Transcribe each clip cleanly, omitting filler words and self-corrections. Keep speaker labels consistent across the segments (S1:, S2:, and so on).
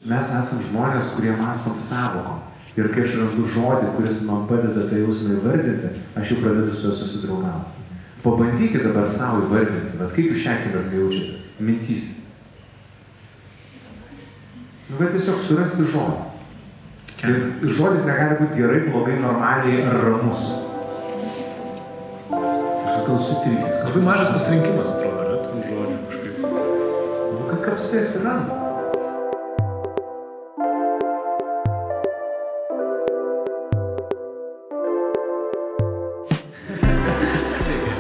S1: mes esam žmonės, kurie mąstom sąvokom. Ir kai aš randu žodį, kuris man padeda tą jausmą įvardinti, aš jau pradedu su juo susidraugauti. Pabandykite dabar savo įvardinti, bet kaip jūs šią akimirką jaučiatės? Mintyse. Bet tiesiog surasti žodį. Ir žodis negali būti gerai, blogai, normaliai ar ramus. Kažkas gal sutrikęs.
S2: Labai mažas pasirinkimas, atrodo, ne? Tų žodžių kažkaip.
S1: Kaip tai atsiranda?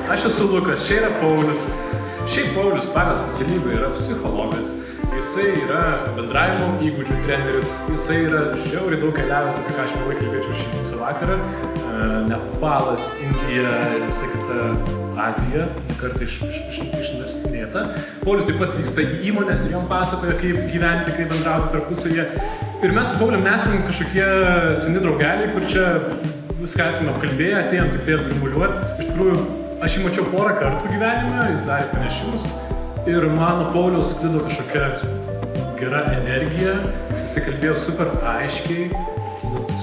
S2: Aš esu Lukas, čia yra Paulius. Šiaip Paulius pagal specialybę yra psichologas. Jisai yra bendravimo įgūdžių treneris. Jisai yra žiauriai daug keliavęs, apie ką aš mielai kalbėčiau šį visą vakarą. Nepalas, Indija ir visa kita Azija, kartą išnarstynėta. Paulius taip pat vyksta į įmonės ir jom pasakoja, kaip gyventi, kaip bendrauti tarpusavyje. Ir mes su Paulium nesam kažkokie seni draugeliai, kur čia viską esame apkalbėję, atėjom tik tai atgrimuliuoti. Iš tikrųjų, aš jį mačiau porą kartų gyvenime, jis darė pranešimus ir mano Pauliaus sklido kažkokia gera energija, jisai kalbėjo super aiškiai,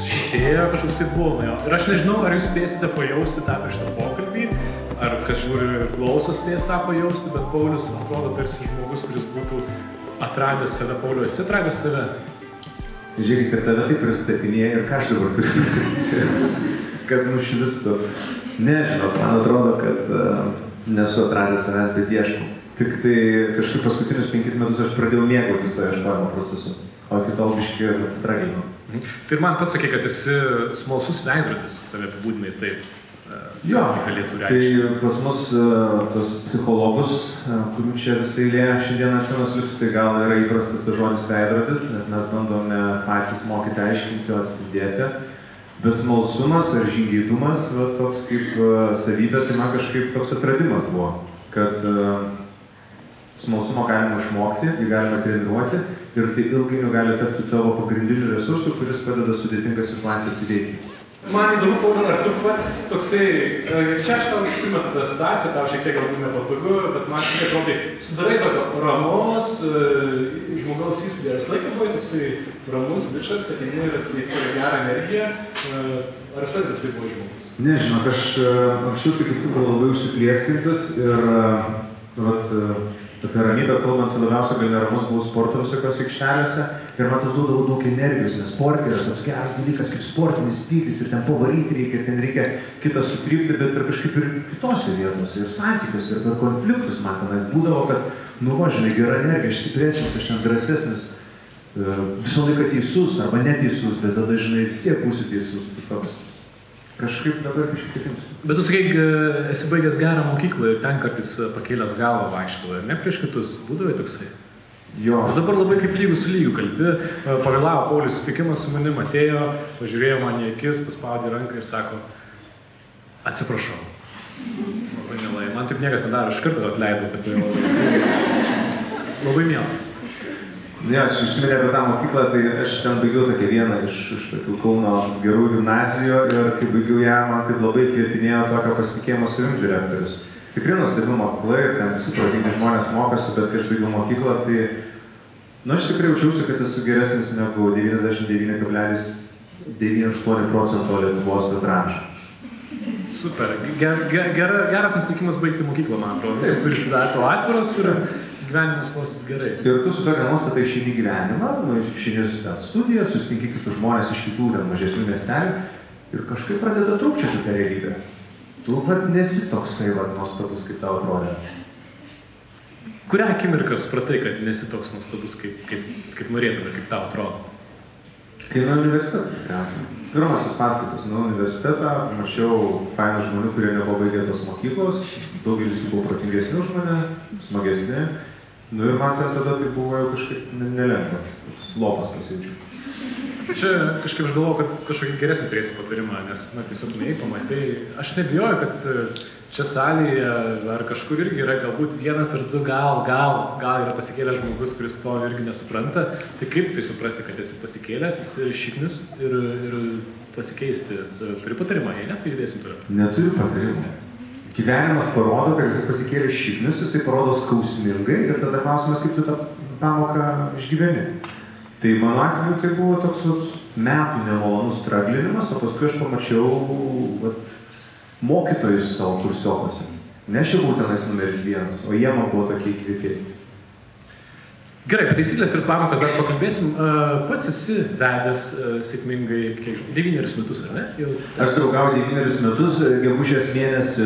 S2: šitėjo kažkoksai buvo nuo jo. Ir aš nežinau, ar jūs spėsite pajausti tą prieš tą pokalbį, ar kas žiūri ir klauso spės tą pajausti, bet Paulius atrodo tarsi žmogus, kuris būtų atradęs save. Paulius, esi atradęs save?
S1: Žiūrėk, ir tave taip pristatinėja ir ką aš dabar turiu pasakyti, kad nušvistų. Nežinau, man atrodo, kad nesu atradęs savęs, bet ieškau. Tik tai kažkaip paskutinius 5 metus aš pradėjau mėgautis to ieškojimo procesu, o iki tol biškį straginau.
S2: Tai ir man pats sakė, kad esi smalsus veidrodis, save apibūdinai taip.
S1: Jo, tai pas mus tos psichologus, kurių čia visą eilė šiandien atsinos lips, tai gal yra įprastas tas žodis veidrodis, nes mes bandome patys mokyti aiškinti, atspindėti. Bet smalsumas ar žingeidumas, toks kaip savybė, tai man kažkaip toks atradimas buvo, kad smalsumo galima išmokti, jį galima treniruoti ir tai ilgainiui gali tapti tavo pagrindiniu resursu, kuris padeda sudėtingas situacijas įveikti.
S2: Man įdomu, Pauliau, ar tu pats toksai, čia aš tau primetu tą situaciją, tau šiek tiek galbūt nepatogu, bet man šiek tiek atrodo, sudarai tokio ramos žmogaus įspūdį, ar laiką buvai toksai ramus bičas, ateini ir atskleidži gerą energiją, ar visai toksai buvo žmogus?
S1: Nežinau, aš anksčiau tai kaip tu buvau labai užsiplieskintas ir apie ramybę kalbant, labiausiai gal neramus buvau sporto visokios aikštelėse ir man tas duodavo daug energijos, nes sportė yra toks geras dalykas kaip sportinis pyktis ir ten pavaryti reikia, ir ten reikia kitą sutrypti, bet ir kažkaip ir kitose vietose, ir santykiuose, ir per konfliktus man tenais būdavo, kad žinai, gera energija, aš stipresnis, aš ten drąsesnis, visą laiką teisus arba neteisus, bet tada, žinai, vis tiek būsi teisus, tai toks. Kažkaip dabar kažkaip kitaip.
S2: Bet tu sakai, esi baigęs gerą mokyklą ir ten kartais pakėlęs galvą vaikštavo, ir ne prieš kitus, būdavai toksai?
S1: Jo.
S2: Aš dabar labai kaip lygus su lygiu kalbi, pavėlavo Paulius susitikimas su manim, atėjo, pažiūrėjo man į akis, paspaudė ranką ir sako, atsiprašau. Labai mielai, man taip niekas nedaro, aš kartą atleidau, kad labai mielai.
S1: Ne, aš užsiminė apie tą mokyklą, tai aš ten baigiau tokią vieną iš tokių Kauno gerų gimnazijų ir kai baigiau ją, man taip labai kvietinėjo tokio pasitikėjimo savim direktorius. Tikrai nuostabi mokykla ir ten visi protingi žmonės mokosi, bet kai aš baigiau mokyklą, tai aš tikrai jaučiausi, kad esu geresnis negu 99,98% Lietuvos bendraamžių.
S2: Super, geras nusiteikimas baigti mokyklą, man atrodo. Visi turi sudaryti atviros ir gyvenimas klosis gerai.
S1: Ir tu su tokia nuostata išeini gyvenimą, išeini studiją, susitinki kitus žmonės iš kitų mažesnių miestelių ir kažkaip pradeda trūkčioti tą realybę. Tu nesi toksai nuostabus, kaip tau atrodė.
S2: Kurią akimirką supratai, kad nesi toks nuostabus, kaip norėtume, kaip tau atrodo?
S1: Kai nuo universiteto tikriausiai. Pirmasis paskaitos nuo universitetą, mačiau fainų žmonių, kurie nepabaigė tos mokyklos, daugelis jų buvo protingesni už mane, smagesni. Ir man ten tada tai buvo jau kažkaip nelengva, lopas pasijaučiau.
S2: Čia kažkaip aš galvoju, kad kažkokį geresnį turėsi patarimą, nes tiesiog neįi pamatai. Aš nebijoju, kad čia salėje ar kažkur irgi yra galbūt vienas ar du gal yra pasikėlęs žmogus, kuris to irgi nesupranta. Tai kaip tai suprasti, kad esi pasikėlęs, esi šiknius ir pasikeisti? Turi patarimą, jei ne, tai judėsim toliau.
S1: Neturiu patarimą. Gyvenimas parodo, kad jisai pasikėlė šiknius, jisai parodo skausmingai ir tada klausimas, kaip tu tą pamoką išgyveni. Tai mano atveju tai buvo toks metų nemalonus straglinimas, o paskui aš pamačiau mokytojus savo kursiokose. Ne aš jau tenais numeris 1, o jie man buvo tokie įkvėpėsnis.
S2: Gerai, apie taisyklės ir pamokas dar pakalbėsim. Pats esi vedęs sėkmingai 9 metus, ar ne?
S1: Aš draugauju 9 metus, gegužės mėnesį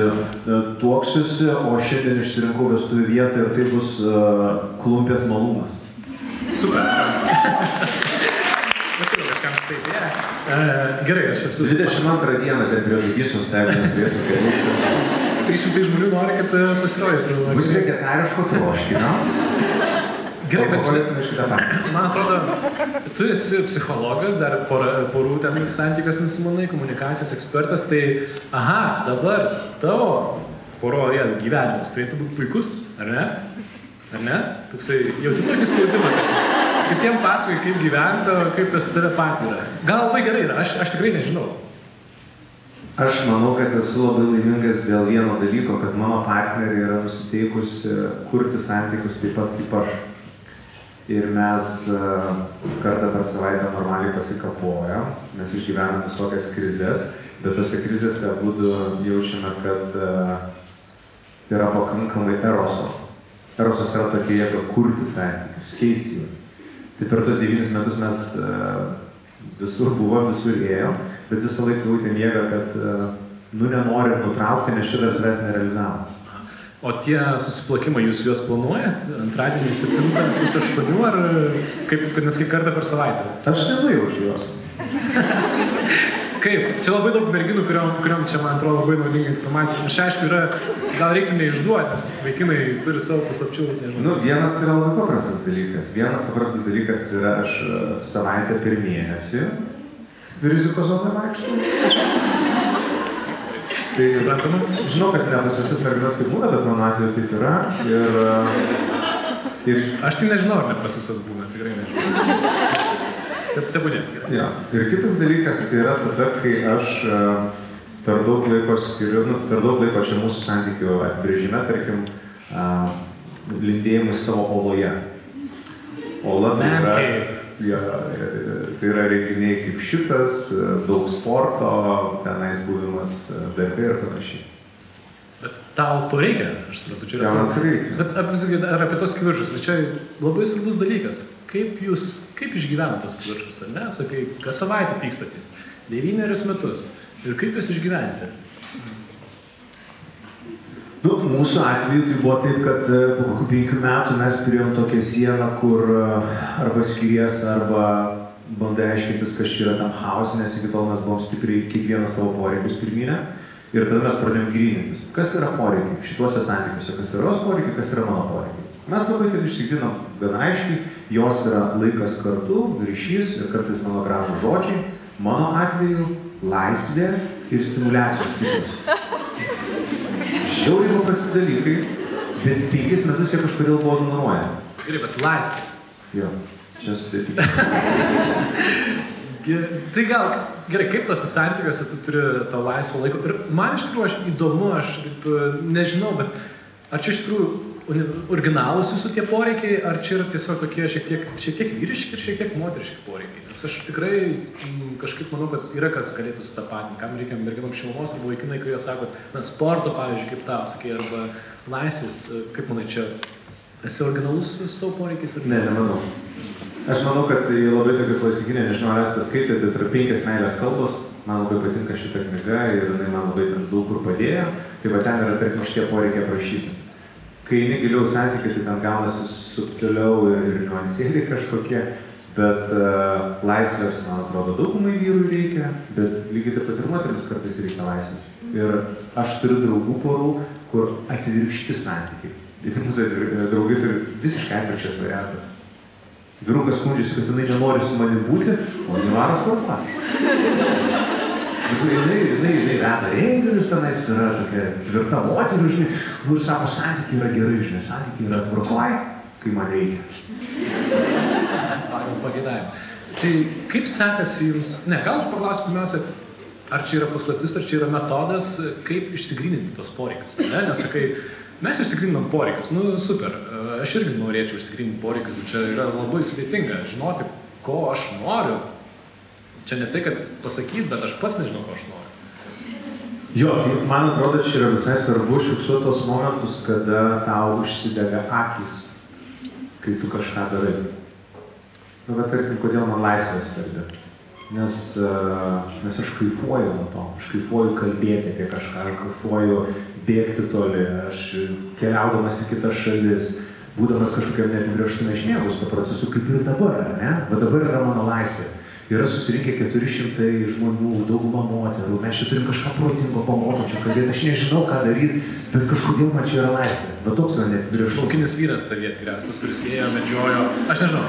S1: tuoksiuosi, o šiandien išsirinkau vestuvių vietą ir tai bus Klumpės malūnas.
S2: Super. Gerai, aš esu...
S1: 22 dieną ten prie Lygisos stebinę turėsim kelių.
S2: 300 žmonių nori, kad pasirodytų.
S1: Bus vegetariško troškinio.
S2: Gerai, bet man atrodo, tu esi psichologas, dar porų ten santykios nusimanai, komunikacijos ekspertas, tai dabar tavo poroje gyvenimas turėtų būti puikus, ar ne? Ar ne? Toksai, jauti tokį spaudimą, kad kitiem pasakoji, kaip gyventa, kaip pas tave partnerė. Gal labai gerai yra, aš tikrai nežinau.
S1: Aš manau, kad esu labai laimingas dėl vieno dalyko, kad mano partnerė yra nusiteikusi kurti santykius taip pat kaip aš. Ir mes kartą per savaitę normaliai pasikapojam, mes išgyvenam visokias krizės, bet tose krizėse abudu jaučiame, kad yra pakankamai eroso. Erosas yra tokia jėga kurti santykius, keisti juos. Tai per tos 9 metus mes visur buvom, visur ėjom, bet visą laiką jautėm jėgą, kad nenorim nutraukti, nes čia dar savęs nerealizavom.
S2: O tie susiplakimai, jūs juos planuojat? Antradienį 7:08 ar nes kaip kartą per savaitę?
S1: Aš nenujaučiu juos.
S2: Kaip? Čia labai daug merginų, kuriom čia, man atrodo, labai naudinga informacija. Aš aišku, gal reiktų neišduoti, nes vaikinai turi savo paslapčių, nežinau.
S1: Vienas tai yra labai paprastas dalykas. Vienas paprastas dalykas tai yra aš savaitę per mėnesį rizikos zonai vaikštau. Tai, žinau, kad ne pas visas merginas kaip būna, bet mano atveju taip yra. Ir...
S2: Aš tai nežinau, ar ne pas visas būna, tikrai nežinau. Tebūnė.
S1: Ja. Ir kitas dalykas tai yra tada, kai aš per daug laiko skiriu, per daug laiko čia mūsų santykių atbrėžime, tarkim, lindėjimui savo oloje. Ola tai yra... Tai yra renginiai kaip šitas, daug sporto, tenais buvimas darbe ir panašiai.
S2: Bet tau to reikia, aš suprantu, čia yra...
S1: Man to reikia.
S2: Bet ar apie tos kivirčius, tai čia labai svarbus dalykas. Kaip išgyvena tos kivirčius, ar ne? Sakai, kas savaitę pykstatys, 9 metus. Ir kaip jūs išgyventi?
S1: Mūsų atveju tai buvo taip, kad po 5 metų mes turėjom tokią sieną, kur arba skiries, arba bandai aiškintis, kas čia yra tam chaos, nes iki tol mes buvom stipriai kiekvieną savo poreikius pirminę. Ir tada mes pradėjom grynintis, kas yra poreikiai šituose santykiuose, kas yra jos poreikiai, kas yra mano poreikiai. Mes labai tai išsigrinom gana aiškiai, jos yra laikas kartu, ryšys ir kartais mano gražų žodžiai, mano atveju laisvė ir stimuliacijos tikslas. Žiauriai paprasti dalykai, bet 5 metus jie kažkodėl buvo ignoruojami.
S2: Gerai, bet laisvė.
S1: Jo, čia sudėtinga.
S2: Tai gal, gerai, kaip tose santykiuose tu turi to laisvo laiko? Ir man iš tikrųjų įdomu, aš taip nežinau, bet ar čia iš tikrųjų originalūs jūsų tie poreikiai, ar čia yra tiesiog tokie šiek tiek vyriški ir šiek tiek moteriški poreikiai? Nes aš tikrai kažkaip manau, kad yra kas galėtų sutapatinti, kam reikia merginom šilumos arba vaikinai, kurie sako, sporto, pavyzdžiui, kaip tau sakai, arba laisvės, kaip manai, čia esi originalus su savo poreikiais?
S1: Ne, nemanau. Aš manau, kad labai tokia klasikinė, nežinau, ar esate skaitę, bet yra 5 meilės kalbos, man labai patinka šita knyga ir jinai man labai daug kur padėjo, tai va ten yra, tarkim, šitie poreikiai aprašyti. Kai eini giliau santykiai, tai ten gaunasi subtiliau ir niuansėliai kažkokie, bet laisvės, man atrodo, daugumai vyrų reikia, bet lygiai taip pat ir moterims kartais reikia laisvės. Ir aš turiu draugų porų, kur atvirkšti santykiai. Tai mūsų draugai turi visiškai atvirkščias variantas. Vyrukas skundžiasi, kad jinai nenori su manim būti, o jinai varo sportuoti. Jinai veda renginius, tenais yra tokia tvirta moterų, žinai, ir sako, santykiai yra gerai, žinai, santykiai yra tvarkoj, kai man reikia.
S2: Pagal pageidavimą. Tai kaip sekasi jums, gal paklausiu pirmiausia, ar čia yra paslaptis, ar čia yra metodas, kaip išsigryninti tos poreikius, ne? Nes sakai, mes išsigryninam poreikius, super, aš irgi norėčiau išsigryninti poreikius, bet čia yra labai sudėtinga žinoti, ko aš noriu, čia ne tai, kad pasakyti, bet aš pats nežinau, ko aš noriu.
S1: Jo, tai man atrodo, čia yra visai svarbu užfiksuoti tos momentus, kada tau užsidega akys, kai tu kažką darai. Nu, bet tarkim, kodėl man laisvė svarbi? Nes aš kaifuoju nuo to, aš kaifuoju kalbėti apie kažką, aš kaifuoju bėgti toli, aš keliaudamas į kitas šalis, būdamas kažkokiam neapibrėžtume išmėgus to procesu, kaip ir dabar, ne? Bet dabar yra mano laisvė. Yra susirinkę 400 žmonių, dauguma moterų, mes čia turim kažką protingo pamokančio kalbėti, aš nežinau, ką daryti, bet kažkodėl man čia yra laisvė. Va toks yra neapibrėžtumas.
S2: Laukinis vyras tavyje tikriausiai, tas, kuris ėjo, medžiojo, aš nežinau.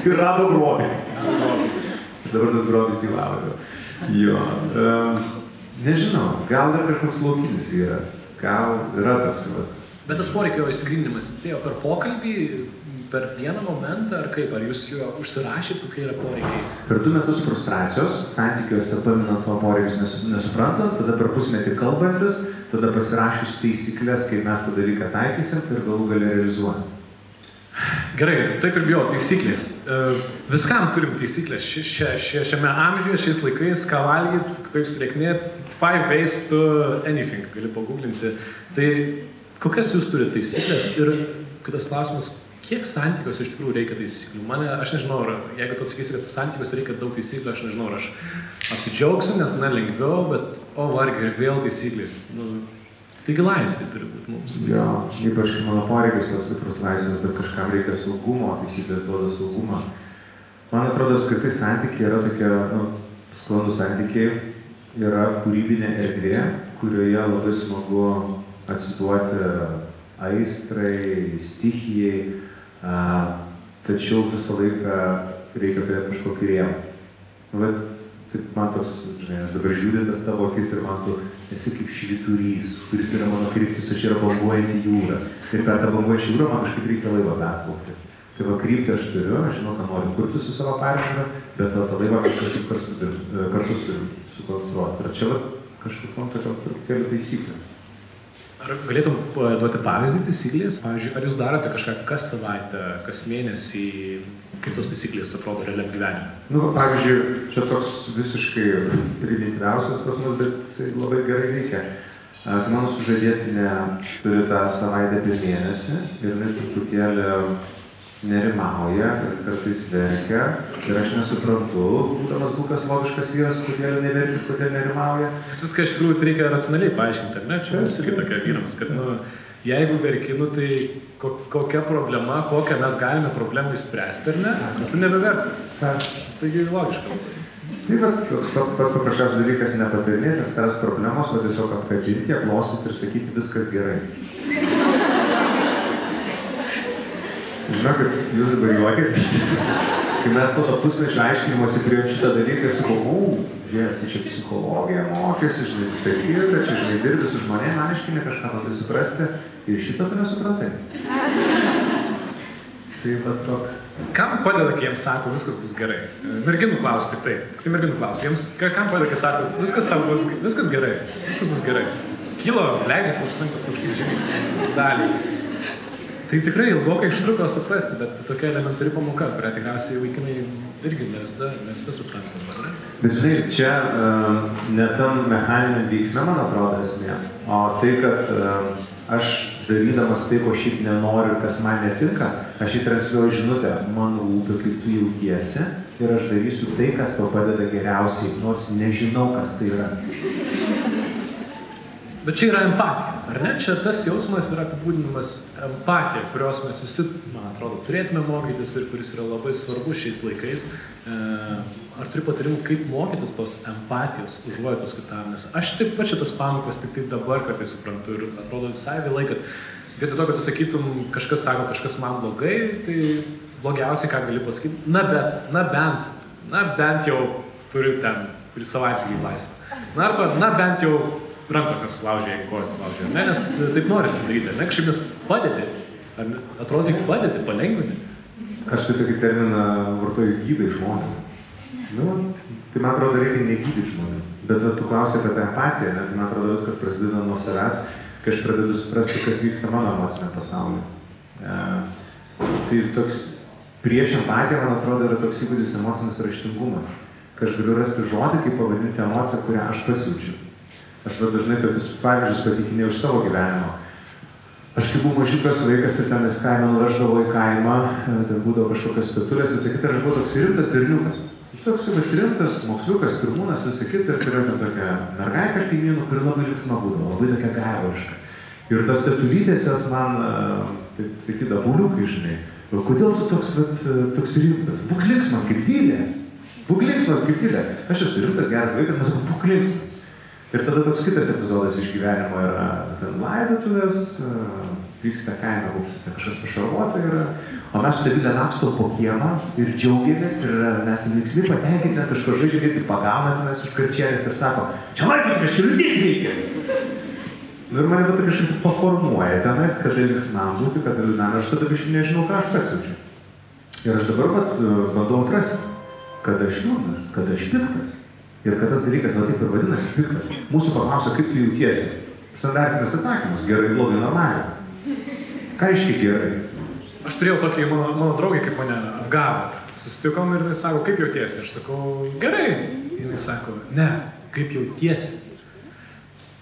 S1: Ir rado grobį. Dabar tas grobis įlavo. Jo. Nežinau, gal dar kažkoks laukinis vyras, gal yra toks.
S2: Bet tas poreikio įsigrindinimas atėjo per pokalbį, per vieną momentą, ar kaip? Ar jūs jo užsirašėt, kokie yra poreikiai?
S1: Per 2 metus frustracijos, santykiuose paminant savo poreikius nesuprantant, tada per pusmetį kalbantis, tada pasirašius taisyklės, kaip mes tą dalyką taikysim ir galų gale realizuojam.
S2: Gerai, taip ir bijau, taisyklės. Viskam turim taisyklės. Šiame amžiuje, šiais laikais, ką valgyt, kaip sureiknėt, 5 ways to anything, gali paguglinti. Tai kokias jūs turite taisyklės? Ir kitas klausimas, kiek santykiuose iš tikrųjų reikia taisyklių? Aš nežinau, jeigu tu atsakysi, kad santykiuose reikia daug taisyklių, aš nežinau, aš apsidžiaugsiu, nes lengviau, bet vargiai ir vėl taisyklės. Taigi laisvė turi būti mums.
S1: Jo, ypač mano poreikis toks stiprus laisvės, bet kažkam reikia saugumo, taisyklės duoda saugumą. Man atrodo, kad tai santykiai yra tokie, sklandūs santykiai, yra kūrybinė erdvė, kurioje labai smagu atsiduoti aistrai, stichijai, tačiau visą laiką reikia turėti kažkokį rėmą. Man toks, žinai, aš dabar žiūrėjau tas tavo akis ir man tu esi kaip švyturys, kuris yra mano kryptis, o čia yra banguojanti jūra. Ir per tą banguojančią jūrą man kažkaip reikia laivą perplaukti. Tai va, kryptį aš turiu, aš žinau, ką noriu kurti su savo partneriu, bet va, tą laivą kažkaip kartu sukonstruoti. Ir čia va, kažkaip man tokia truputėlį taisyklė.
S2: Ar galėtum duoti pavyzdį taisyklės? Pavyzdžiui, ar jūs darote kažką kas savaitę, kas mėnesį, kaip tos taisyklės atrodo realiam gyvenime?
S1: Pavyzdžiui, čia toks visiškai primityviausias pas mus, bet jisai labai gerai veikia. Tai mano sužadėtinė turi tą savaitę per mėnesį ir jinai truputėlį nerimauja ir kartais verkia ir aš nesuprantu, būdamas būkas logiškas vyras, kodėl neverkis, kodėl nerimauja.
S2: Viską iš tikrųjų reikia racionaliai paaiškinti, ar ne? Čia mums irgi tokia vyrams, kad jeigu verki, tai kokia problema, kokią mes galime problemą išspręsti, ar ne? Tu nebeverki. Taigi logiška.
S1: Tai va, tas paprasčiausias dalykas nepatarinėti, spręs problemos, o tiesiog apkabinti, aplostyti ir sakyti viskas gerai. Žinau, kad jūs dabar juokėtės, kai mes po to pusmečio aiškinimuose priėjom šitą dalyką ir sakau, žiūrėk, tai čia psichologija mokėsi, žinai, visai kita, čia, žinai, dirbi su žmonėm, aiškini kažką bandai suprasti ir šito tu nesuprantai. Tai va toks...
S2: Kam padeda, kai jiems sako, viskas bus gerai? Merginų klausia tik taip. Tai merginų klausia. Jiems, kam padeda, kai sako, viskas gerai, viskas bus gerai. Kilo, leidžiasi, tas sunkas užkeičiai dalį. Tai tikrai ilgokai užtruko suprasti, bet tokia elementari pamoka, kurią tikriausiai vaikinai irgi ne visada suprantam, ar ne?
S1: Bet žinai, čia ne tam mechaniniam veiksme, man atrodo, esmė, o tai, kad aš darydamas tai, ko šiaip nenoriu ir kas man netinka, aš įtransliuoju žinutę, man rūpi, kaip tu jautiesi ir aš darysiu tai, kas tau padeda geriausiai, nors nežinau, kas tai yra.
S2: Bet čia yra empatija, ar ne? Čia tas jausmas yra apibūdinimas empatija, kurios mes visi, man atrodo, turėtume mokytis ir kuris yra labai svarbus šiais laikais. Ar turi patarimų, kaip mokytis tos empatijos, užuojautos kitam? Nes aš taip pat šitas pamokas tik dabar kartais suprantu ir atrodo visai vėlai, kad vietoj to, kad tu sakytum, kažkas sako, kažkas man blogai, tai blogiausiai, ką gali pasakyti, na bent jau turiu ten, kuri savaitgalį laisvę. Na bent jau rankos nesulaužė, jeigu kojas sulaužė, ne, nes taip norisi daryti, ne, kažkaip nes padėti, atrodo, tik padėti, palengvinti.
S1: Aš tai tokį terminą vartoju gydai žmonės. Tai man atrodo, reikia negydyti žmonių, bet tu klausai apie tą empatiją, tai man atrodo, viskas prasideda nuo savęs, kai aš pradedu suprasti, kas vyksta mano emocinė pasaulyje. Tai toks prieš empatiją, man atrodo, yra toks įgūdis emocinis raštingumas, kad aš galiu rasti žodį, kaip pavadinti emociją, kurią aš pasijaučiu. Aš dažnai tokius pavyzdžius patikinėjau iš savo gyvenimo. Aš kaip buvau mažiukas vaikas ir tenais kaimą nuveždavo į kaimą, ten būdavo kažkokios pietulės, visą kitą, ir aš buvau toks rimtas berniukas. Toks jau rimtas, moksliukas, pirmūnas, visą kitą, ir turėjau ten tokią mergaitę kaimynų, kuri labai linksma būdavo, labai tokia gaivariška. Ir tos tetulytės jos man, taip sakydavo, Pauliukai, žinai, kodėl tu toks rimtas? Būk linksmas kaip Vilė. Būk linksmas kaip Vilė. Aš esu rimtas, geras vaikas, mes sakau, būk linksmas. Ir tada toks kitas epizodas iš gyvenimo yra ten laidotuvės, vyksta kaime, kažkas pašarvota yra, o mes su Vilė lakstom po kiemą ir džiaugiamės ir mes linksmi patenkinti, kažko žaidžiam ir pagauna tenais už karčienės ir sako, čia laikyti, aš čia liūdėti reikia. Ir mane tada kažkaip paformuoja tenais, kada linksmam būti, kada liūdnam, aš tada biškai nežinau, ką aš pasijaučiu. Ir aš dabar bandau atrasti, kada aš liūdnas, kada aš piktas. Ir kad tas dalykas, va taip ir vadinasi, piktas. Mūsų paklausia, kaip tu jautiesi. Standartinis atsakymas, gerai, blogai, normaliai. Ką reiškia gerai?
S2: Aš turėjau tokį, mano draugį, kaip mane apgavo. Susitikom ir jis sako, kaip jautiesi? Aš sakau, gerai. Ir jis sako, ne, kaip jautiesi?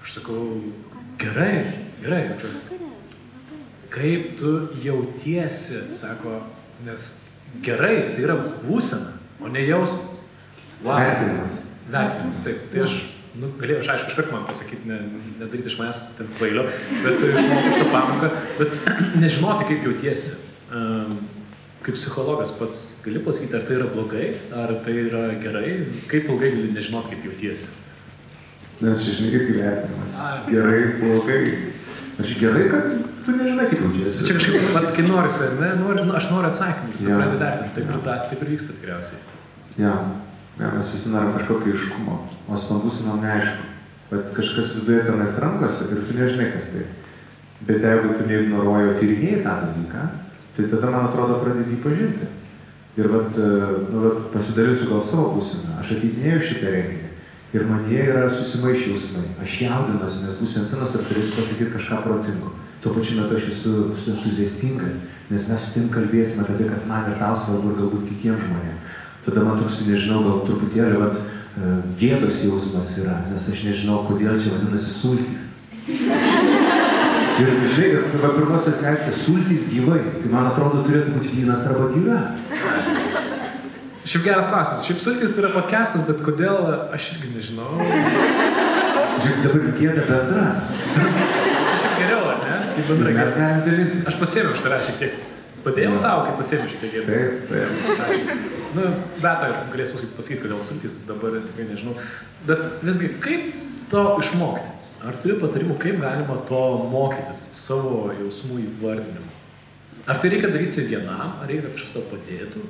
S2: Aš sakau, gerai jaučiuosi. Kaip tu jautiesi, sako, nes gerai, tai yra būsena, o ne jausmas. Wow. Vertinimas, taip. Tai aš, galėjau, aš aišku, iškart man pasakyti, nedaryti iš manęs ten kvailio, bet išmokau šitą pamoką, bet nežinoti, kaip jautiesi. Kaip psichologas pats gali pasakyti, ar tai yra blogai, ar tai yra gerai, kaip ilgai gali nežinoti, kaip jautiesi.
S1: Na, čia žinai, kaip vertinimas. Gerai, blogai. Aš gerai, kad tu nežinai, kaip jautiesi.
S2: Čia kažkaip, kai norisi, ne, aš noriu atsakymų, tu pradedi vertinti, taip ir vyksta tikriausiai.
S1: Ja, mes visi norim kažkokio aiškumo, o stambusinom neaišku. Bet kažkas viduje tenais rankose ir tu nežinai, kas tai. Bet jeigu tu neignoruoji, o tyrinėjai tą dalyką, tai tada, man atrodo, pradedi jį pažinti. Ir pasidarysiu gal savo būseną. Aš ateidinėjau šitą renginį ir manyje yra susimaišę jausmai. Aš jaudinuosi, nes būsiu ant scenos ir turėsiu pasakyti kažką protingo. Tuo pačiu metu aš esu entuziastingas, nes mes su tim kalbėsime apie tai, kas man ir tau svarbu ir galbūt kitiems žmonėms. Tada man toks, nežinau, gal truputėlį gėdos jausmas yra, nes aš nežinau, kodėl čia vadinasi sultys. Ir žinai, pirma asociacija sultys gyvai, tai man atrodo turėtų būti vynas arba gyva.
S2: Šiaip geras klausimas. Šiaip sultys tai yra podcastas, bet kodėl aš irgi nežinau.
S1: Žiūrėk, dabar gėda bendra.
S2: Šiaip geriau, ar ne? Kaip bendra
S1: mes galim dalintis.
S2: Aš pasėmiau iš tavęs šiek tiek. Padėjau tau, kaip pasėmiau šiek tiek gėdą.
S1: Taip.
S2: Bet galės pasakyti, kodėl sultys, dabar tikrai nežinau. Bet visgi, kaip to išmokti? Ar turi patarimų, kaip galima to mokytis, savo jausmų įvardinimu? Ar tai reikia daryti vienam, ar reikia, kad kažkas tau padėtų?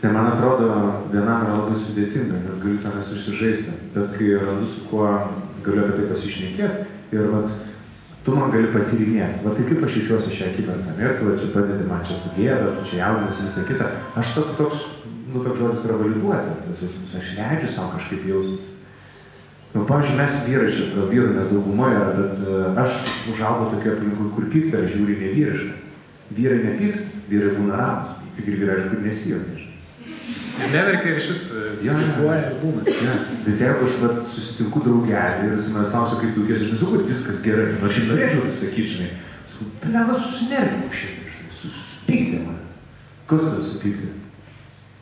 S1: Ne, man atrodo, vienam yra labai sudėtinga, nes galiu tenais užsižaisti. Bet kai randu, su kuo galiu apie tai pasišnekėti ir tu man gali patyrinėti. Tai kaip aš jaučiuosi šią akimirką. Ir tu čia padedi man čia tu gėda, tu čia jaudinasi visą kitą. Aš toks žodis yra validuoti. Aš leidžiu savo kažkaip jaustis. Pavyzdžiui, mes vyrai čia, vyrų nedauguma yra, bet aš užaugau tokia aplinkui, kur pykti yra žiūri nevyriška. Vyrai nepyksta, vyrai būna ramus. Tik ir vyrai, aišku, nesijuokia.
S2: Neverkia ir šis kritikuoja ir būna.
S1: Bet jeigu aš susitinku draugelį ir jis manęs klausia, kaip tu jautiesi, aš nesakau, kad viskas gerai. Aš šiaip norėčiau tai sakyti, žinai. Sakau, pelevas susinervinau šiandien, supykdė manęs. Kas tada supykdė?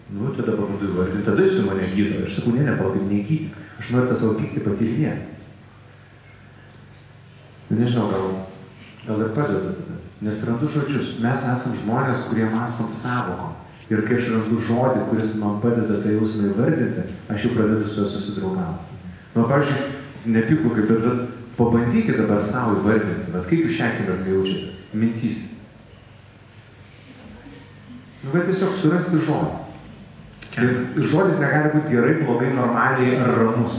S1: Tada pabandau įvardinti, tada jis mane gydo. Aš sakau, nepalauk, negydyk. Aš noriu tą savo pyktį patyrinėti. Nežinau, gal ir padeda tada. Nes randu žodžius. Mes esam žmonės, kurie mąstom savokom. Ir kai aš randu žodį, kuris man padeda tą jausmą įvardinti, aš jau pradedu su juo susidraugauti. Pavyzdžiui, nepyklukai, bet pabandykite dabar savo įvardinti, kaip jūs šią akimirką jaučiatės, mintys. Tiesiog surasti žodį. Ir žodis negali būti gerai, blogai, normaliai ar ramus.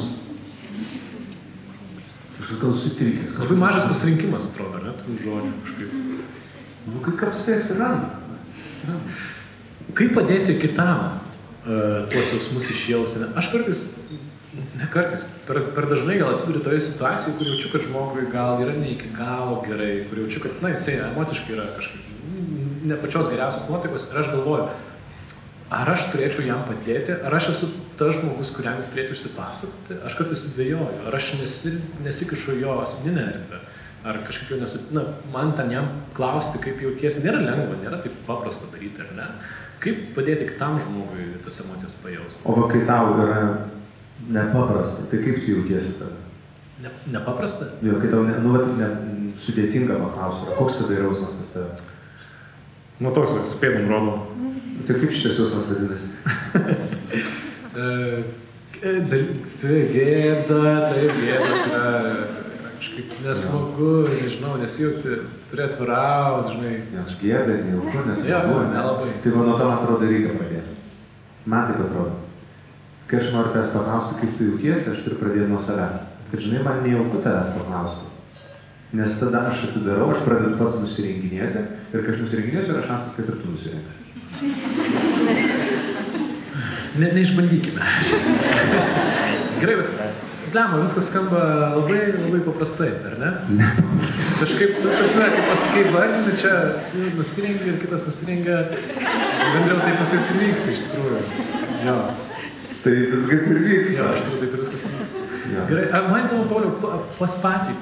S1: Kažkas gal sutrikęs.
S2: Labai mažas pasirinkimas, atrodo, ne, tų žodžių kažkaip.
S1: Kaip apstai atsiranda.
S2: Kaip padėti kitam tuos jausmus išjausti? Aš kartais, per dažnai gal atsiduriu toje situacijoje, kur jaučiu, kad žmogui gal yra ne iki galo gerai, kur jaučiu, kad jisai emociškai yra kažkaip ne pačios geriausios nuotaikos ir aš galvoju, ar aš turėčiau jam padėti, ar aš esu tas žmogus, kuriam jis turėtų išsipasakoti, aš kartais sudvejoju, ar aš nesikišu jo asmeninę erdvę, ar kažkaip jau man ten jam klausti, kaip jautiesi, nėra lengva, nėra taip paprasta daryti, ar ne? Kaip padėti kitam žmogui tas emocijas pajausti?
S1: O kai tau yra nepaprasta, tai kaip tu jautiesi tada?
S2: Nepaprasta?
S1: Jo, kai tau sudėtinga paklausti, koks tada yra jausmas pas tave?
S2: Toks, su pėdom rodom.
S1: Tai kaip šitas jausmas vadinasi?
S2: Tai gėdas yra kažkaip nesmagu, nežinau, nesijauti, turi atvirauti, žinai.
S1: Aš gėda, nejauku, nesmagu.
S2: Jo, nelabai.
S1: Tai nuo to, man atrodo, reikia pradėti. Man taip atrodo. Kai aš noriu tavęs paklausti, kaip tu jautiesi, aš turiu pradėti nuo savęs. Kad, žinai, man nejauku tavęs paklausti. Nes tada aš atidarau, aš pradedu pats nusirenginėti ir kai aš nusirenginėsiu, yra šansas, kad ir tu nusirengsi.
S2: Neišbandykime. Gerai, bet blema, viskas skamba labai, labai paprastai, ar ne?
S1: Ne.
S2: Kažkaip, kaip pasakai, vardinį, čia nusirengia ir kitas nusirengia, bendriau taip viskas ir vyksta, iš tikrųjų. Jo.
S1: Tai viskas ir vyksta.
S2: Jo, iš tikrųjų taip ir viskas ir vyksta.
S1: Ja.
S2: Gerai, man įdomu, Pauliau, pas patį,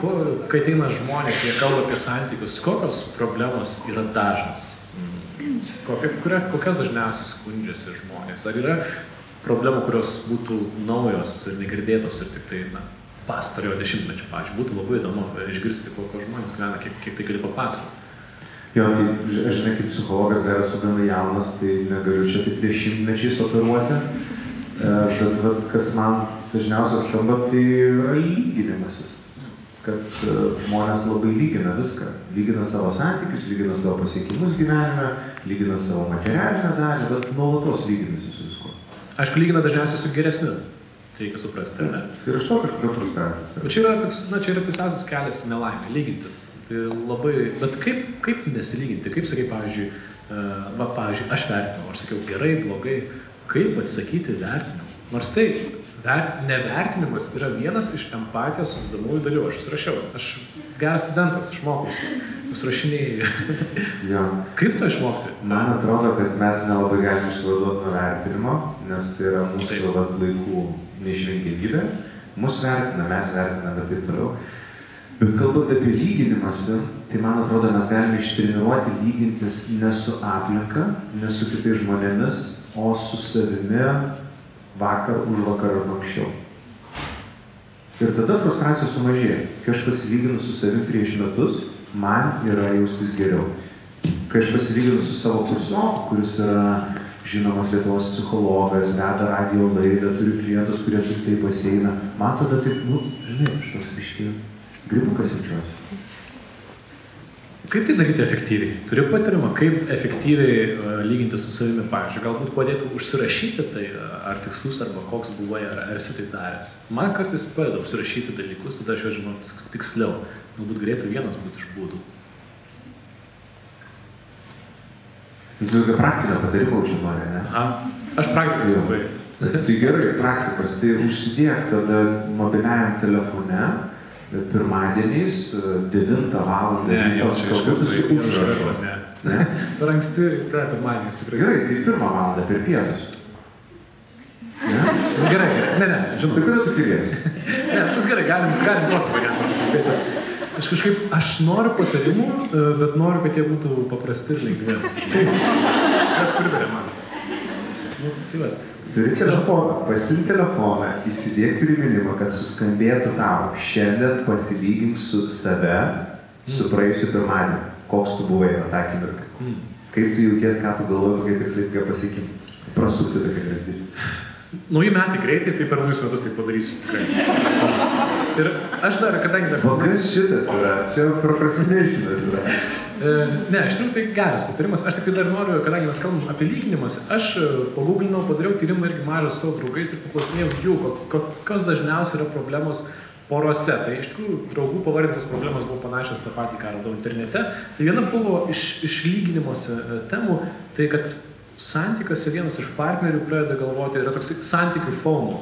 S2: kai ateina žmonės, jie kalba apie santykius, kokios problemos yra dažnos? Kokias dažniausiai skundžiasi žmonės? Ar yra problemų, kurios būtų naujos ir negirdėtos ir tik tai, pastarojo dešimtmečio, pavyzdžiui, būtų labai įdomu išgirsti, kokio žmonės gyvena, kiek tai gali papasakoti.
S1: Jo, tai aš žinai, kaip psichologas dar esu gana jaunas, tai negaliu čia taip 10-mečiais operuoti, bet kas man dažniausiai skamba, tai yra lyginimasis. Kad žmonės labai lygina viską. Lygina savo santykius, lygina savo pasiekimus gyvenime, lygina savo materialinę dalį, bet nuolatos lyginasi su viskuo.
S2: Aišku, lygina dažniausiai su geresniu. Tai reikia suprasti, ar ne?
S1: Ir iš to kažkokia frustracija.
S2: Bet čia yra tiesiausias kelias į nelaimę, lygintis. Tai labai, bet kaip nesilyginti? Kaip sakai, pavyzdžiui, aš vertinau, aš sakiau gerai, blogai, kaip atsisakyti vertinimų? Nors tai nevertinimas yra vienas iš empatijos sudedamųjų dalių. Aš susirašiau. Aš geras studentas, išmokusi. Susirašinėjai.
S1: Ja.
S2: Kaip to išmokti?
S1: Man atrodo, kad mes nelabai galime išsivaduoti nuo vertinimo, nes tai yra mūsų laikų neišvengiamybė. Mus vertina, mes vertiname ir taip toliau. Bet kalbant apie lyginimąsi, tai man atrodo, mes galime ištreniruoti lygintis ne su aplinka, ne su kitais žmonėmis, o su savimi vakar, už vakar ar anksčiau. Ir tada frustracija sumažėja. Kai aš pasilyginu su savim prieš metus, man yra jaustis geriau. Kai aš pasilyginu su savo kursioku, kuris yra žinomas Lietuvos psichologas, veda radijo laidą, turi klientus, kurie turi tai baseiną, man tada taip, žinai, aš toks biškį gribukas jaučiuosi.
S2: Kaip tai daryti efektyviai? Turiu patarimą, kaip efektyviai lyginti su savimi, pavyzdžiui, galbūt padėtų užsirašyti tai, ar tikslus, arba koks buvai, ar esi tai daręs. Man kartais padeda užsirašyti dalykus, tada aš jau žinau tiksliau. Galbūt galėtų vienas būti iš būdų.
S1: Tu tokia praktinio patarimo čia nori, ne?
S2: Aš praktikas labai.
S1: Tai gerai, praktikos. Tai užsidėk tada mobiliajam telefone, pirmadieniais, 9 valandą.
S2: Ne, jau čia iškartu
S1: užrašo.
S2: Ne? Per anksti ryte, pirmadieniais tikrai.
S1: Gerai, tai 1 valandą per pietus. Ne?
S2: Gerai, ne, žinau.
S1: Tai kada tu keliesi?
S2: Ne, viskas gerai, galim tokį variantą. Aš noriu patarimų, bet noriu, kad jie būtų paprasti ir lengvi. Kas pritarė man? Tai va.
S1: Turi telefoną, pasimk telefoną, įsidėk priminimą, kad suskambėtų tau. Šiandien pasilygink su save, su praėjusiu pirmadieniu. Koks tu buvai tą akimirką. Kaip tu jauties, ką tu galvoji, kokie tikslai, kokie pasiekimai. Prasukti tokia grandinė.
S2: Nauji metai greitai, tai per naujus metus tai padarysiu tikrai. Ir aš dar, kadangi dar...
S1: O kas šitas yra? Čia procrastinationas yra.
S2: Ne, iš tikrųjų tai geras patarimas. Aš tik tai dar noriu, kadangi mes kalbam apie lyginimus, aš paguglinau, padariau tyrimą irgi mažą su savo draugais ir paklausinėjau jų, kokios dažniausiai yra problemos porose. Tai iš tikrųjų draugų pavardintos problemos buvo panašios tą patį, ką radau internete. Tai viena buvo iš lyginimuose temų, tai kad santykiuose vienas iš partnerių pradeda galvoti, yra toks santykių FOMO.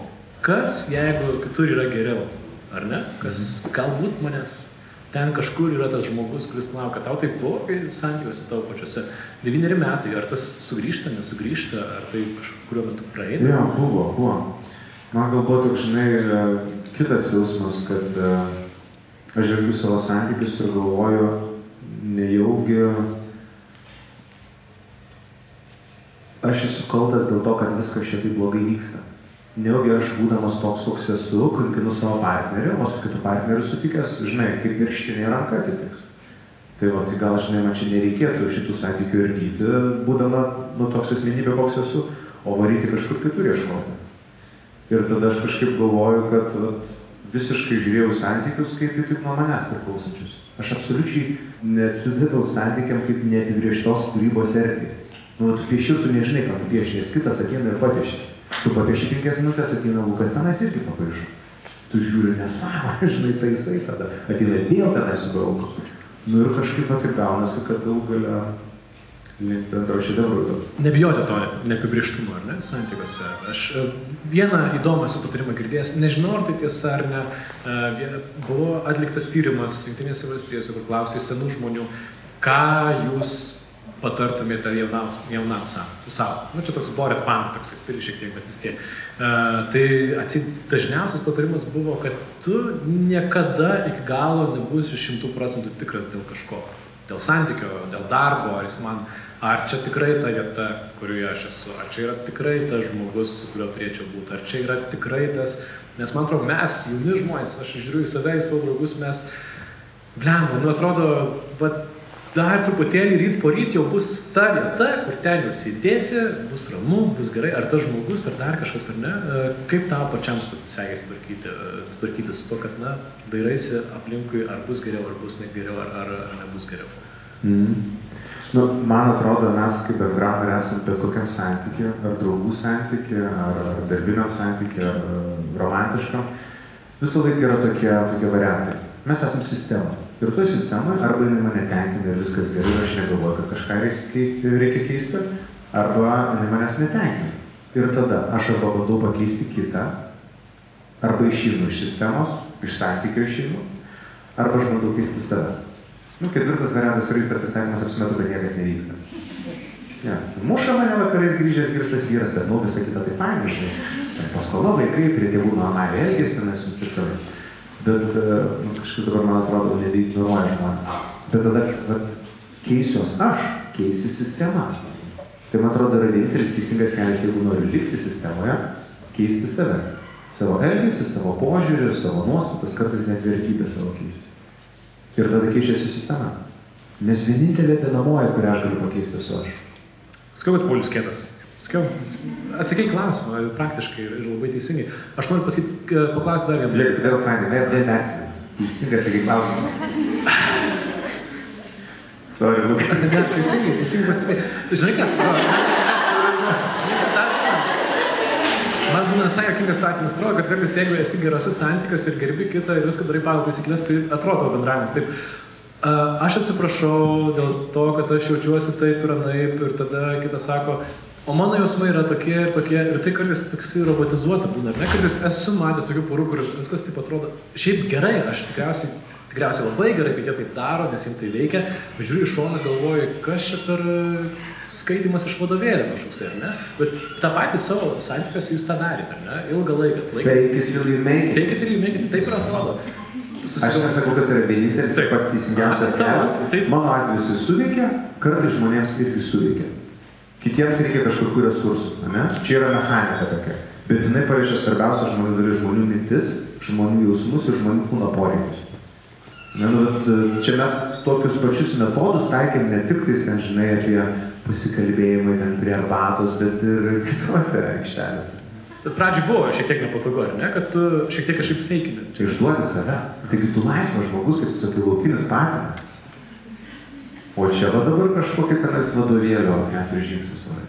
S2: Kas, jeigu kitur yra geriau, ar ne? Kas galbūt manęs ten kažkur yra tas žmogus, kuris laukia, tau tai blogai santykiuose tavo pačiuose. 9 metai, ar tas sugrįžta, nesugrįžta, ar tai kažkurio metu praeina?
S1: Jo, buvo. Man galbūt toks, žinai, kitas jausmas, kad aš žvelgiu savo santykius ir galvoju, nejaugi aš esu kaltas dėl to, kad viskas šiek tiek blogai vyksta. Nejaugi aš būdamas toks, koks esu, kankinu savo partnerį, o su kitu partneriu sutikęs, žinai, kaip virštinė ranka atitiks. Tai gal, žinai, man čia nereikėtų šitų santykių ardyti, būdama, toks asmenybė, koks esu, o varyti kažkur kitur ieškoti. Ir tada aš kažkaip galvoju, kad visiškai žiūrėjau santykius kaip tik nuo manęs priklausančius. Aš absoliučiai neatsidaviau santykiam kaip neapibrėžtos kūrybos erdvė. Tu pieši ir tu nežinai, ką tu pieši, nes kitas ateina ir papieši. Tu papieši 5 minutės, ateina Lukas tenais irgi papaišo. Tu žiūri nesąmonę, žinai, taisai tada. Ateina vėl tenais subrauko. Ir kažkaip taip gaunasi, kad daug galia link bendro šedevrų.
S2: Nebijoti to neapibrėžtumo, ar ne, santykiuose. Aš vieną įdomą esu patarimą girdėjęs, nežinau, ar tai tiesa ar ne, buvo atliktas tyrimas Jungtinėse valstijose, kur klausė senų žmonių, ką jūs patartumėte jaunam savo. Čia toks Boret Pan, toks stilius šiek tiek, bet vis tiek. Tai dažniausias patarimas buvo, kad tu niekada iki galo nebūsi 100% tikras dėl kažko. Dėl santykio, dėl darbo, ar čia tikrai ta vieta, kurioje aš esu, ar čia yra tikrai tas žmogus, su kuriuo turėčiau būti, ar čia yra tikrai tas, nes man atrodo, mes, jauni žmonės, aš žiūriu į save, į savo draugus, mes, atrodo, dar truputėlį ryt po ryt jau bus ta vieta, kur ten jūs įdėsi, bus ramu, bus gerai, ar tas žmogus, ar dar kažkas, ar ne. Kaip tau pačiam sekėsi tvarkyti su to, kad, dairaisi aplinkui, ar bus geriau, ar bus negeriau, ar nebus geriau.
S1: Man atrodo, mes kaip bendram esam bet kokiam santykiui, ar draugų santykiui, ar darbiniam santykiui, ar romantiškam, visą laiką yra tokie variantai. Mes esam sistema. Ir toj sistemoje arba jinai mane tenkina ir viskas gerai, ir aš negalvoju, kad kažką reikia keisti, arba jinai manęs netenkina. Ir tada aš arba bandau pakeisti kitą, arba išeinu iš sistemos, iš santykio išeinu, arba aš bandau keisti save. 4 variantas yra hipertestavimas, apsimetu, kad niekas nevyksta. Muša mane vakarais grįžęs girtas vyras, bet visą kitą tai fainai. Paskola vaikai, prie tėvų normaliai elgėsi, tenais ir taip toliau. Bet kažkaip dabar, man atrodo, nebeignoruoja žmonės. Bet tada keisiuos aš, keisi sistema. Tai, man atrodo, yra vienintelis teisingas kelias, jeigu noriu likti sistemoje, keisti save. Savo elgesį, savo požiūrį, savo nuostatas, kartais net vertybę savo keisti. Ir tada keičiasi sistema. Nes vienintelė dedamoji, kurią aš galiu pakeisti, esu aš.
S2: Sakau, kad Paulius kietas. Atsakai klausimą, praktiškai ir labai teisingai. Aš noriu paklausti dar vieną.
S1: Žiūrėk, vėl fainai, vėl vertinant. Teisingai atsakai klausimą. Sorry, Luka.
S2: Teisingai pastebėjai. Žinai, kas? Man būna visai jokinga situacija, nes atrodo, kad kartais, jeigu esi gerose santykiuose ir gerbi kitą ir viską darai pagal taisyklės, tai atrodo bendravimas. Taip, aš atsiprašau dėl to, kad aš jaučiuosi taip ir anaip, ir tada kitas sako, o mano jausmai yra tokie, ir tai kartais toksai robotizuota būna, ar ne? Kartais esu matęs tokių porų, kur viskas taip atrodo, šiaip gerai, aš tikriausiai labai gerai, kad jie taip daro, nes jiems tai veikia, bet žiūriu iš šoną, galvoju, kas čia per skaitimas iš vadovėlio kažkoks, ar ne? Bet tą patį savo santykiuose jūs tą darėte, ar ne? Ilgą laiką.
S1: Fake it till you make it.
S2: Fake it till you make it, taip ir atrodo.
S1: Aš nesakau, kad tai yra vienintelis ir pats teisingiausias kelias. Mano atveju jis suveikia, kartais žmonėms irgi suveikia. Kitiems reikia kažkokių resursų, ne? Čia yra mechanika tokia. Bet jinai paliečia svarbiausia žmonių dalis, žmonių mintis, žmonių jausmus ir žmonių kūno poreikius. Čia mes tokius pačius metodus taikėm ne tik tais, žinai, apie pasikalbėjimai ten prie arbatos, bet ir kitose aikštelėse.
S2: Bet pradžiai buvo šiek tiek nepatogu, ar ne? Kad tu šiek tiek kažkaip feikini.
S1: Tai išduodi save. Taigi tu laisvas žmogus, kaip tu sakai, laukinis patinas. O čia va dabar kažkokį tenais vadovėlio 4 žingsnius varai.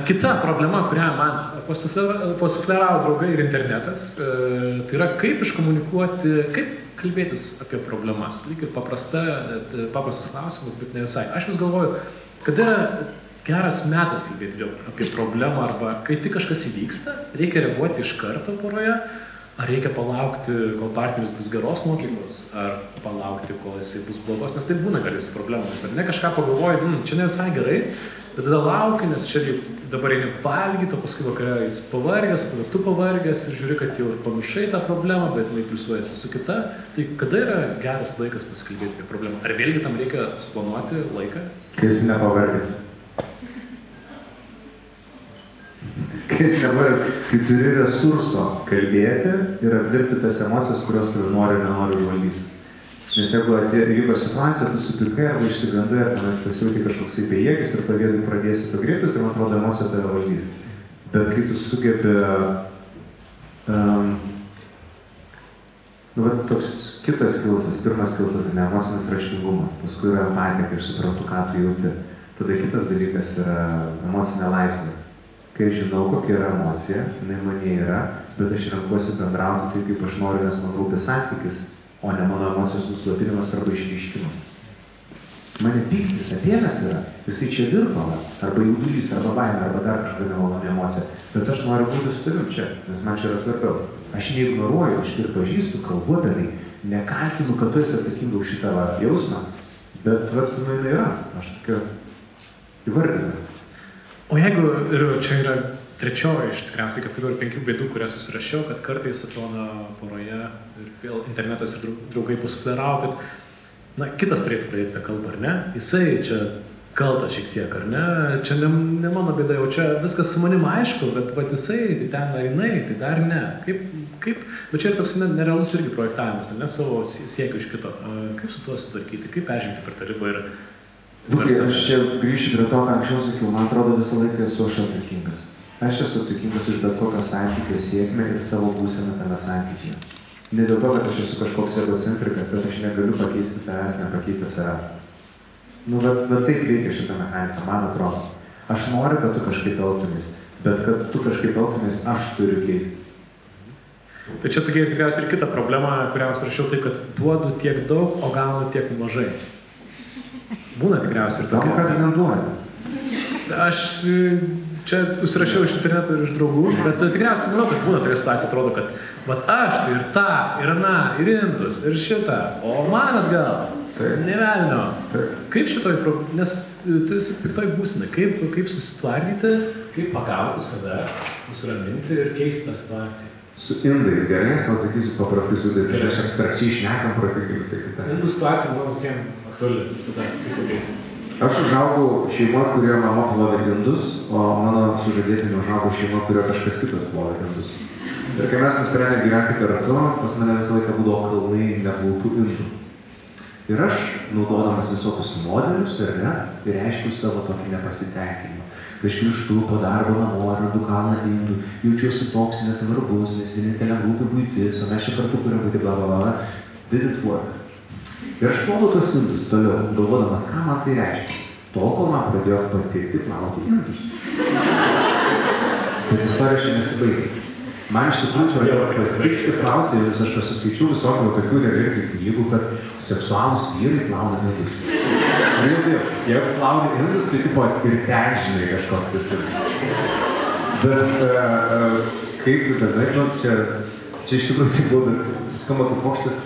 S2: Kita problema, kurią man pasufleravo draugai ir internetas, tai yra kaip iškomunikuoti, kaip kalbėtis apie problemas. Lyg ir paprastas klausimas, bet ne visai. Aš vis galvoju, kad yra geras metas kalbėti apie problemą arba kai tik kažkas įvyksta, reikia reaguoti iš karto poroje, ar reikia palaukti, kol partneris bus geros nuotaikos, ar palaukti, kol jisai bus blogos, nes tai būna kartais problemas. Ar ne kažką pagalvoji, čia ne visai gerai, bet tada lauki, nes čia dabar eini valgyti, o paskui vakare jis pavargęs, o tada tu pavargęs ir žiūri, kad jau pamiršai tą problemą, bet jinai pliusuojasi su kita. Tai kada yra geras laikas pasikalbėti apie problemą? Ar vėlgi tam reikia suplanuoti laiką?
S1: Kai esi nepavargęs. Kai turi resurso kalbėti ir apdirbti tas emocijas, kurios tu nori ir nenori valdyti. Nes jeigu įvyko situacija, tu supirkai arba išsigandai, ar tenais pasijauti kažkoksai bejėgis ir pradėsi to griebtis, tai man atrodo emocija tave valdys. Bet kai tu sugebi, toks kitas kilsas, pirmas kilsas yra emocinis raštingumas, paskui yra empatija, kai aš suprantu, ką tu jauti. Tada kitas dalykas yra emocinė laisvė. Kai žinau, kokia yra emocija, jinai mane yra, bet aš renkuosi bendrauti taip, kaip aš noriu, nes man rūpi santykis, o ne mano emocijos nuslopinimas arba išryškimas. Mane pyktis atėnas yra, jisai čia virpala, arba jaudulys, arba baimė, arba dar kažkokia nemaloni emocija, bet aš noriu būti su tavim čia, nes man čia yra svarbiau. Aš neignoruoju, aš pripažįstu, kalbu apie tai, nekaltinu, kad tu esi atsakinga už šitą jausmą, bet jinai yra, aš tokia įvardinu.
S2: O jeigu, ir čia yra trečioji iš tikriausiai 4 ar 5 bėdų, kurias susirašiau, kad kartais atrodo poroje ir vėl internetas ir draugai pasufleravo, kad kitas turėtų pradėti tą kalbą, ar ne? Jisai čia kaltas šiek tiek, ar ne? Čia ne mano bėda, jau čia viskas su manim aišku, bet jisai, tai ten ar jinai, tai dar ne. Kaip, bet čia yra toks nerealus irgi projektavimas, ne savo siekių iš kito. Kaip su tuo sutvarkyti, kaip peržengti per tą ribą ir...
S1: Aš čia grįšiu prie to, ką anksčiau sakiau, man atrodo visą laiką esu aš atsakingas. Aš esu atsakingas už bet kokio santykio sėkmę ir savo būseną tame santykyje. Ne dėl to, kad aš esu kažkoks egocentrikas, bet aš negaliu pakeisti tavęs, nepakeiti savęs. Bet taip veikia šitą mechaniką, man atrodo. Aš noriu, kad tu kažkaip elgtumės, bet kad tu kažkaip elgtumės, aš turiu keistis.
S2: Tai čia atsakėjai tikriausiai ir kitą problemą, kurią rašiau taip, kad duodu tiek daug, o gaunu tiek mažai. Būna tikriausiai ir tokia.
S1: Kad neduoda.
S2: Aš čia užsirašiau iš interneto ir iš draugų, bet tikriausiai manau, kad būna tokia situacija, atrodo, kad aš tai ir tą, ir aną, ir indus, ir šitą, o man atgal, ne velnio. Kaip šitoj, nes tu esi piktoj būsenai, kaip susitvardyti, kaip pagauti save, nusiraminti ir keisti tą situaciją.
S1: Su indais gerai, aš pasakysiu paprastai su indais, aš abstrakčiai šnekam protingai visai kitą.
S2: Indų situacija, manau, visiems aktuali visada, visais laikais.
S1: Aš užaugau šeimoje, kurioje mama plovė indus, o mano sužadėtinė užaugau šeimoje, kurioje kažkas kitas plovė indus. Ir kai mes nusprendėme gyventi kartu, pas mane visą laiką būdavo kalnai neplautų indų. Ir aš, naudodamas visokius modelius, reiškiu savo tokį nepasitenkinimą. Kai aš grįžtu po darbo namo, randu kalną indų, jaučiuosi toks nesvarbus, nes vienintelė rūpi buitis, o mes čia kartu turim būti bla. Didn't work. Ir aš ploviau tos indus toliau, galvodamas, ką man tai reiškia. Tol, kol man pradėjo patikti plauti indus. Bet istorija čia nesibaigė. Man iš tikrųjų pradėjo pasitikti plauti indus, aš pasiskaičiau visokių tokių irgi knygų, kad seksualūs vyrai plauna indus. Jeigu plauni indus, tai tipo ir ten žinai kažkoks esi. Bet kaip dažnai, čia iš tikrųjų tai buvo, bet skamba kaip pokštas.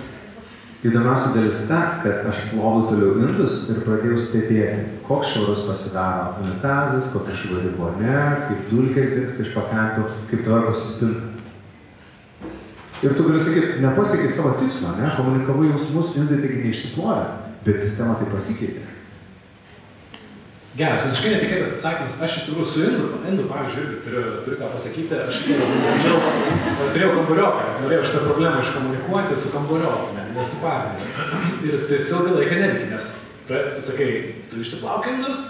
S1: Įdomiausia dalis ta, kad aš ploviau toliau indus ir pradėjau stebėti, koks švarus pasidaro unitazas, kokia švari vonia, kaip dulkės dingsta iš pakrančių, kaip tvarkosi spinta. Ir tu gali sakyti, nepasiekiai savo tikslo, komunikavai jausmus, indai taigi neišsiplovė, bet sistema tai pasikeitė.
S2: Geras, visiškai netikėtas atsakymas. Aš iš tikrųjų su indu, pavyzdžiui, irgi turiu ką pasakyti. Aš turėjau kambarioką, norėjau šitą problemą iškomunikuoti su kambarioku, ne su partneriu. Ir tai ilgą laiką neveikia, nes, sakai, tu išsiplauki indus,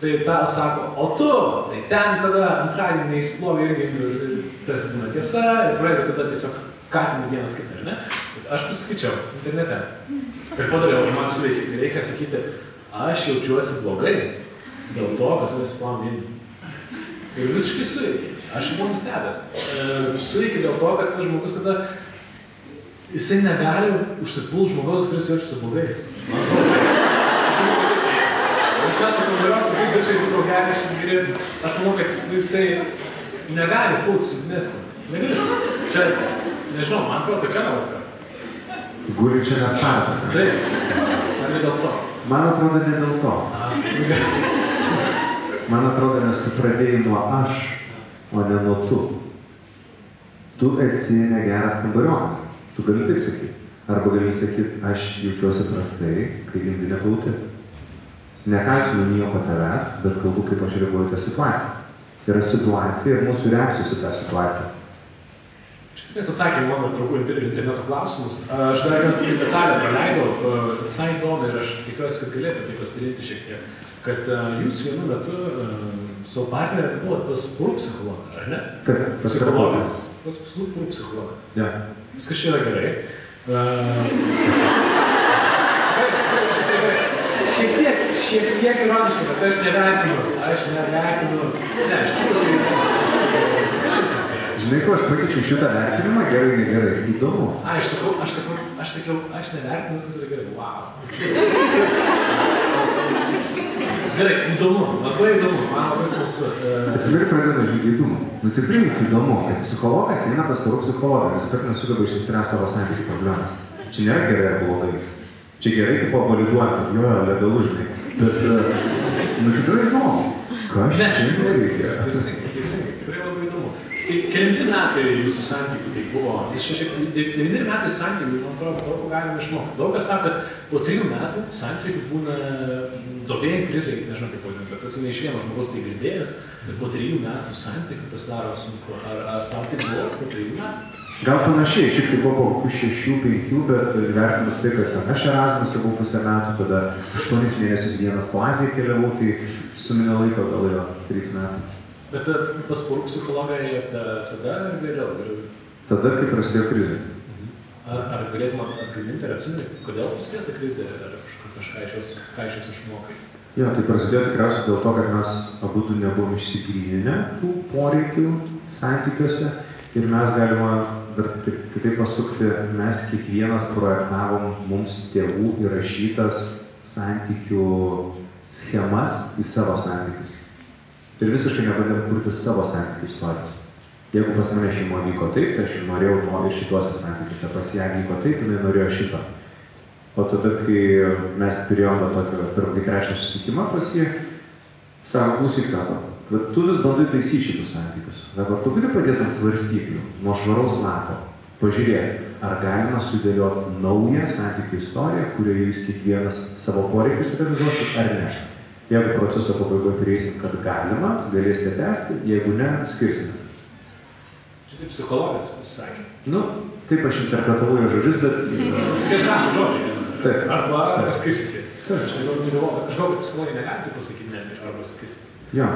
S2: tai tą sako, o tu, tai ten tada antradienį neįsiplovė irgi indų, tas būna tiesa, ir pradeda tada tiesiog kaltinti vienas kitą, ar ne? Aš pasakyčiau internete. Ir padariau, ir man suveikė, reikia sakyti, aš jaučiuosi blogai. Dėl to, kad tu nesiplauni indų. Ir visiškai suveikė. Aš buvau nustebęs. Suveikė dėl to, kad tas žmogus tada, jisai negali užsipult žmogaus, kuris jaučiasi blogai. Man atrodo. Nes mes su kambarioku, kaip dačiai draugelį išgirėti, aš manau, kad jisai negali pult su dnesnį. Negali. Čia Nežinau, man atrodo, tokia nuotrauka.
S1: Guli čia nesparta.
S2: Taip, ar ne dėl to?
S1: Man atrodo, ne dėl to. Man atrodo, nes tu pradėjai nuo aš, o ne nuo tu. Tu esi negeras kambariokas. Tu gali taip sakyti. Arba gali sakyti, aš jaučiuosi prastai, kai gimdi neplauti. Nekaltinu nieko tavęs, bet kalbu, kaip aš reaguoju tą situaciją. Yra situacija ir mūsų reakcijos į tą situaciją.
S2: Iš esmės atsakė mano draugų interneto klausimus. Aš dar vieną detalę praleidau, visai įdomu ir aš tikiuosi, kad galėtų tai pasidaryti šiek tiek. Kad jūs vienu metu savo partnerį buvot pas porų psichologą, ar ne?
S1: Taip,
S2: psichologas. Pas porų psichologą.
S1: Ja.
S2: Viskas čia yra gerai. Šiek tiek ironiškai, bet aš nevertinu. Ne, iš tikrųjų.
S1: Žinai, ko aš pakeičiau šitą vertinimą, gerai, negerai, įdomu.
S2: Aš sakiau, aš nevertinu, viskas yra gerai, wow. Gerai, įdomu, labai įdomu, man labai smalsu.
S1: Atsiveria pradeda žygėdumą. Nu tikrai įdomu, kad psichologas eina pas porų psichologą, nes kartais nesugeba išsispręsti savo santykių problemas. Čia nėra gerai ar blogai. Čia gerai tu pavaliduoti, kad jo, legalu, žinai. Bet, nu tikrai įdomu. Ką aš čia nereikia?
S2: Teisingai, tikrai labai įdomu. Tai kelinti metai jūsų santykių tai buvo, 9 metai santykių, man atrodo, daug galima išmokti. Daug kas sako, kad po 3 metų santykių būna duobėjai krizai, nežinau kaip vadinti, bet tas ne iš vieno žmogaus tai girdėjęs, bet po 3 metų santykių pasidaro sunku. Ar tam tai buvo po 3 metų?
S1: Gal panašiai, šiek tiek buvo po kokių 6-5, bet vertinus tai, kad aš Erasmus'e buvau pusę metų, tada 8 mėnesius vienas klasėje keliavau, tai suminė laiko gal jo 3 metų.
S2: Bet pas porų psichologą ėjote tada ar vėliau?
S1: Tada, kai prasidėjo krizė.
S2: Ar galėtum atgaminti ir atsiminti, kodėl prasidėjo ta krizė, ar kažką iš jos išmokai?
S1: Jo, tai prasidėjo tikriausiai dėl to, kad mes abudu nebuvom išsigryninę tų poreikių santykiuose ir mes galima dar kitaip pasukti, mes kiekvienas projektavom mums tėvų įrašytas santykių schemas į savo santykius. Ir visiškai nebandėm kurti savo santykių istorijos. Jeigu pas mane šeimoje vyko taip, tai aš norėjau ir šituose santykiuose, pas ją vyko taip, jinai norėjo šito. O tada, kai mes turėjom tokį pirmąjį trečią susitikimą pas jį, sako, klausyk, sako, bet tu vis bandai taisyti šitus santykius. Dabar tu gali padėti ant svarstyklių, nuo švaraus lapo, pažiūrėti, ar galima sudėlioti naują santykių istoriją, kurioje jūs kiekvienas savo poreikius realizuosit, ar ne. Jeigu proceso pabaigoje prieisim, kad galima, galėsite tęsti, jeigu ne, skirsime.
S2: Čia taip psichologas pasisakė.
S1: Nu, taip aš interpretavau jo žodžius, bet...
S2: Skirtrašų žodžiai.
S1: Taip.
S2: Arba skirstykės. Aš galvoju, kad psichologai negali taip pasakyti, ne, arba skirstykės.
S1: Jo.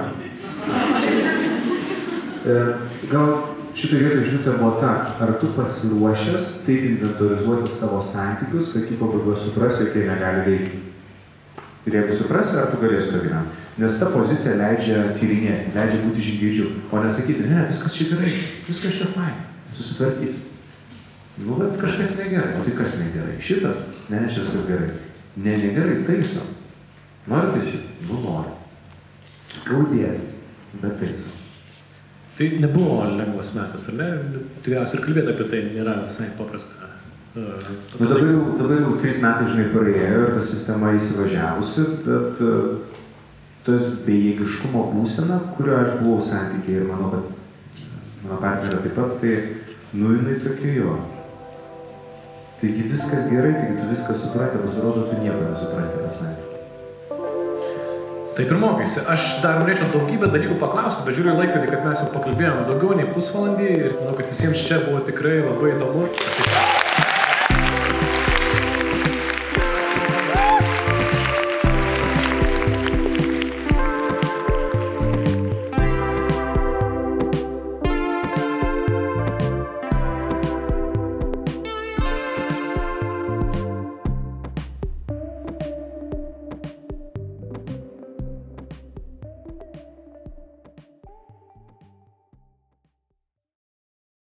S1: Gal šitoj vietoj žinutė buvo ta, ar tu pasiruošęs taip inventorizuoti savo santykius, kad jį pabaigoje suprasi, jog jie negali veikti. Ir jeigu suprasi, ar tu galėsi to gyventi. Nes ta pozicija leidžia tyrinėti, leidžia būti žingeidžiu, o nesakyti, ne, viskas čia gerai, viskas čia fain, susitvarkysi. Nu, bet kažkas negerai, o tai kas negerai? Šitas? Ne, čia viskas gerai. Ne, negerai, taiso. Nori taisyti? Nu, nori. Skaudės, bet taiso.
S2: Tai nebuvo lengvas metas, ar ne? Tikriausiai ir kalbėti apie tai nėra visai paprasta.
S1: Dabar jau 3 metai, žinai, praėjo ir ta sistema įsivažiavusi, bet tas bejėgiškumo būsena, kurio aš buvau santykiai ir manau, kad mano partnerė taip pat, tai jinai tokia jo. Taigi viskas gerai, taigi tu viską supranti, pasirodo, tu nieko nesupranti tą santykį.
S2: Taip ir mokaisi. Aš dar norėčiau daugybę dalykų paklausti, bet žiūriu į laikrodį, kad mes jau pakalbėjome daugiau nei pusvalandį ir manau, kad visiems čia buvo tikrai labai įdomu.